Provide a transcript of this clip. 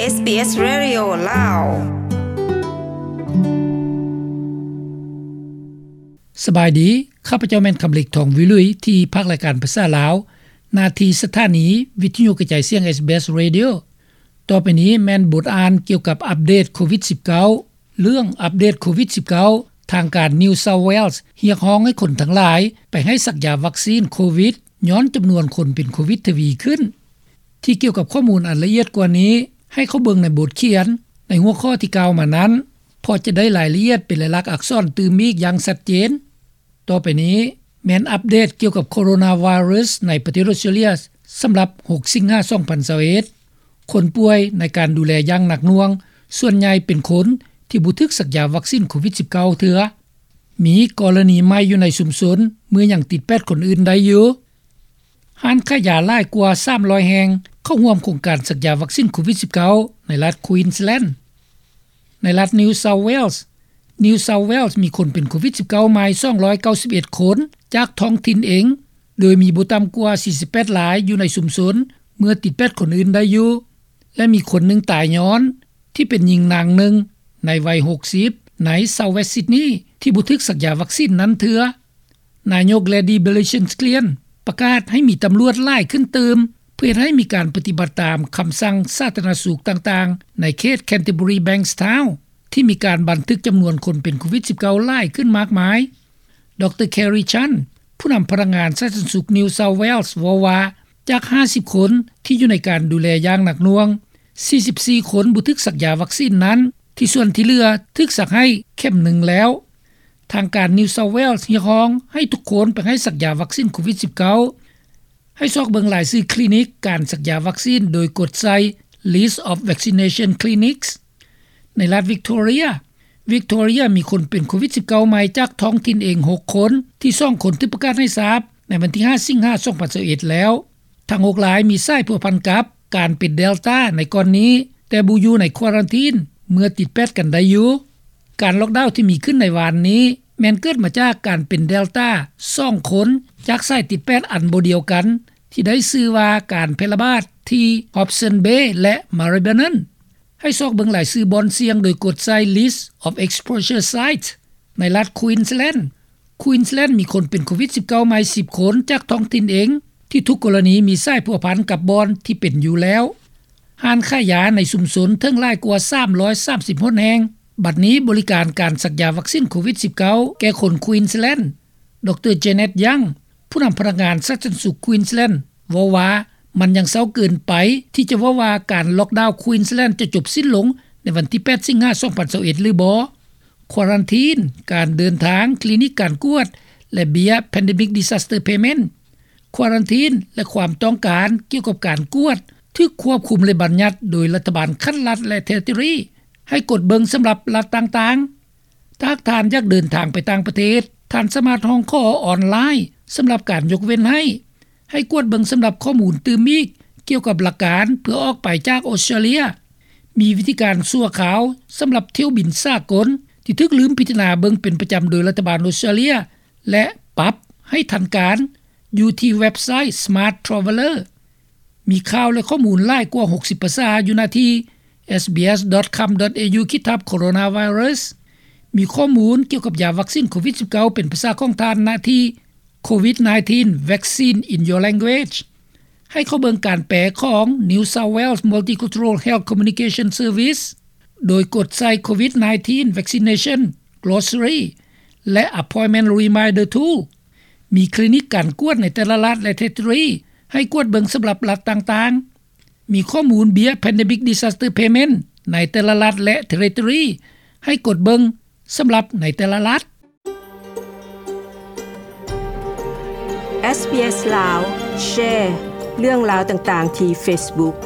ເອສບີເອສ Radio ລາວ. ສະບາຍດີ, ຂ້າພະເຈົ້າແມ່ນຄຳເລັກ ທອງວິລຸຍ ທີ່ພາກລາຍການພາສາລາວ ໜ້າທີ່ສະຖານີວິທະຍຸກະຈາຍສຽງ ເອສບີເອສ Radio. ຕໍ່ໄປນີ້ແມ່ນບົດອ່ານກ່ຽວກັບອັບເດດໂຄວິດສິບເກົ້າ. ເລື່ອງອັບເດດໂຄວິດສິບເກົ້າ ທາງການ New South Wales ຮຽກຮ້ອງໃຫ້ຄົນທັງຫຼາຍໄປໃຫ້ສັກຢາວັກຊີນໂຄວິດ ຍ້ອນຈຳນວນຄົນເປັນໂຄວິດທະວີຂຶ້ນ. ທີ່ກ່ຽວກັບຂໍ້ມູນອັນລະອຽດກວ່ານີ້, ໃຫ້ເຂົ້າເບິ່ງໃນບົດຂຽນໃນຫົວຂໍ້ທີ່ກ່າວມານັ້ນ, ເພາະຈະໄດ້ລາຍລະອຽດເປັນລາຍລັກອັກສອນຕື່ມອີກຢ່າງຊັດເຈນ. ຕໍ່ໄປນີ້ແມ່ນອັບເດດກ່ຽວກັບໂຄໂຣນາໄວຣັສໃນປະເທດອົດສະຕຣາເລຍ ສຳລັບຫົກສິງຫາ ສອງພັນຊາວເອັດ. ຄົນປ່ວຍໃນການດູແລຢ່າງໜັກໜ່ວງ ສ່ວນໃຫຍ່ເປັນຄົນທີ່ບໍ່ຖືກສັກຢາວັກຊີນໂຄວິດສິບເກົ້າເທື່ອ. ມີກໍລະນີໃໝ່ຢູ່ໃນຊຸມຊົນ ເມື່ອຍັງຕິດແປດຄົນອື່ນໄດ້ຢູ່. ຮ້ານຂາຍຢາຫຼາຍກວ່າສາມຮ້ອຍແຫ່ງ ເຂົ້າຮ່ວມໂຄງການສັກຢາວັກຊີນໂຄວິດສິບເກົ້າ ໃນລັດ Queensland. ໃນລັດ New South Wales, New South Wales ມີຄົນເປັນໂຄວິດສິບເກົ້າໃໝ່ ສອງຮ້ອຍເກົ້າສິບເອັດຄົນ ຈາກທ້ອງຖິ່ນເອງ, ໂດຍມີບໍ່ຕ່ຳກວ່າສີ່ສິບແປດລາຍຢູ່ໃນຊຸມຊົນ ເມື່ອຕິດແປດຄົນອື່ນໄດ້ຢູ່ ແລະ ມີຄົນໜຶ່ງຕາຍຍ້ອນທີ່ເປັນຍິງນາງໜຶ່ງໃນໄວຫົກສິບ ໃນ South West Sydney ທີ່ບໍ່ຖືກສັກຢາວັກຊີນນັ້ນເທື່ອ. ນາຍົກ Gladys Berejiklian ປະກາດໃຫ້ມີຕຳຫຼວດຫຼາຍຂຶ້ນຕື່ມ ເພື່ອເຮັດໃຫ້ມີການປະຕິບັດຕາມຄຳສັ່ງສາທາລະນະສຸກຕ່າງໆ ໃນເຂດ Canterbury Bankstown ທີ່ມີການບັນທຶກຈຳນວນຄົນເປັນໂຄວິດສິບເກົ້າຫຼາຍຂຶ້ນມາກມາຍ. ດຣ Kerry Chant ຜູ້ນຳພະນັກງານສາທາລະນະສຸກ New South Wales ເວົ້າວ່າ ຈາກຫ້າສິບຄົນທີ່ຢູ່ໃນການດູແລຢ່າງໜັກໜ່ວງ, ສີ່ສິບສີ່ຄົນບໍ່ຖືກສັກຢາວັກຊີນນັ້ນ, ທີ່ສ່ວນທີ່ເຫຼືອຖືກສັກໃຫ້ເຂັມໜຶ່ງແລ້ວ. ທາງການ New South Wales ຮຽກຮ້ອງໃຫ້ທຸກຄົນໄປໃຫ້ສັກຢາວັກຊີນໂຄວິດສິບເກົ້າ. ໃຫ້ຊອກເບິ່ງລາຍຊື່ຄລີນິກການສັກຢາວັກຊີນ ໂດຍກົດໃສ່ List of Vaccination Clinics. ໃນລັດ Victoria, Victoria ມີຄົນເປັນໂຄວິດສິບເກົ້າໃໝ່ຈາກທ້ອງຖິ່ນເອງຫົກຄົນ, ທີ່ສອງຄົນຖືກປະກາດໃຫ້ຊາບໃນວັນທີຫ້າ ສິງຫາ ສອງພັນຊາວເອັດແລ້ວ. ທັງຫົກລາຍມີສາຍພົວພັນກັບການເປັນ Delta ໃນກ່ອນນີ້, ແຕ່ບໍ່ຢູ່ໃນຄວາຣັນທີນເມື່ອຕິດແປດກັນໄດ້ຢູ່. ການລັອກດາວທີ່ມີຂຶ້ນໃນວານນີ້ ແມ່ນເກີດມາຈາກການເປັນ Delta ສອງຄົນ ຈາກສາຍຕິດແປດອັນບໍ່ດຽວກັນ ທີ່ໄດ້ຊື່ວ່າການແຜ່ລະບາດທີ່ Hobsons Bay ແລະ Maribyrnong. ໃຫ້ຊອກເບິ່ງລາຍຊື່ບ່ອນສ່ຽງໂດຍກົດໃສ່ List of Exposure Sites ໃນລັດ Queensland. Queensland ມີຄົນເປັນໂຄວິດສິບເກົ້າໃໝ່ສິບຄົນຈາກທ້ອງຖິ່ນເອງ ທີ່ທຸກກໍລະນີມີສາຍພົວພັນກັບບ່ອນທີ່ເປັນຢູ່ແລ້ວ. ຮ້ານຂາຍຢາໃນຊຸມຊົນເຖິງຫຼາຍກວ່າສາມຮ້ອຍສາມສິບຫົນແຫ່ງ ບັດນີ້ບໍລິການການສັກຢາວັກຊີນໂຄວິດສິບເກົ້າ ແກ່ຄົນ Queensland. ດຣ Janet Young ຜູ້ນຳພະນັກງານສາທາລະນະສຸກ Queensland ເວົ້າວ່າ ມັນຍັງເຊົ້າເກີນໄປທີ່ຈະເວົ້າວ່າການລັອກດາວ Queensland ຈະຈົບສິ້ນລົງໃນວັນທີແປດ ສິງຫາ ສອງພັນຊາວເອັດ ຫຼືບໍ່. ຄວາຣັນທີນ, ການເດີນທາງ, ຄລີນິກການກວດ ແລະ ເບ້ຍ Pandemic Disaster Payment. ຄວາຣັນທີນ ແລະ ຄວາມຕ້ອງການກ່ຽວກັບການກວດ ຖືກຄວບຄຸມ ແລະ ບັນຍັດໂດຍລັດຖະບານຂັ້ນລັດ ແລະ Territory ໃຫ້ກົດເບິ່ງສຳລັບລັດຕ່າງໆ. ຖ້າຫາກທ່ານຢາກເດີນທາງໄປຕ່າງປະເທດ, ທ່ານສາມາດຮ້ອງຂໍອອນລາຍສຳລັບການຍົກເວັ້ນໃຫ້. ໃຫ້ກວດເບິ່ງສຳລັບຂໍ້ມູນຕື່ມອີກກ່ຽວກັບຫຼັກການເພື່ອອອກໄປຈາກອົດສະຕຣາເລຍ. ມີວິທີການຊົ່ວຄາວສຳລັບຖ້ຽວບິນສາກົນທີ່ຖືກລືມພິຈາລະນາເບິ່ງເປັນປະຈຳໂດຍລັດຖະບານອົດສະຕຣາເລຍ ແລະ ປັບໃຫ້ທັນການ ຢູ່ທີ່ເວັບໄຊ Smart Traveller. ມີຂ່າວ ແລະ ຂໍ້ມູນຫຼາຍກວ່າຫົກສິບພາສາຢູ່ໜ້າທີ່ SBS.com.au ຂີດທັບ Coronavirus. ມີຂໍ້ມູນກ່ຽວກັບຢາວັກຊີນໂຄວິດສິບເກົ້າ ເປັນພາສາຂອງທ່ານ ໜ້າທີ່ COVID nineteen Vaccine in Your Language. ໃຫ້ເຂົ້າເບິ່ງການແປຂອງ New South Wales Multicultural Health Communication Service ໂດຍກົດໃສ່ COVID nineteen Vaccination Glossary ແລະ Appointment Reminder Tool. ມີຄລີນິກການກວດໃນແຕ່ລະລັດ ແລະ Territory ໃຫ້ກວດເບິ່ງສຳລັບລັດຕ່າງໆ. ມີຂໍ້ມູນເບ້ຍ Pandemic Disaster Payment ໃນແຕ່ລະລັດ ແລະ Territory ໃຫ້ກົດເບິ່ງສຳລັບໃນແຕ່ລະລັດ. ເອສບີເອສ ລາວ ແຊເລື່ອງລາວຕ່າງໆທີ່ Facebook.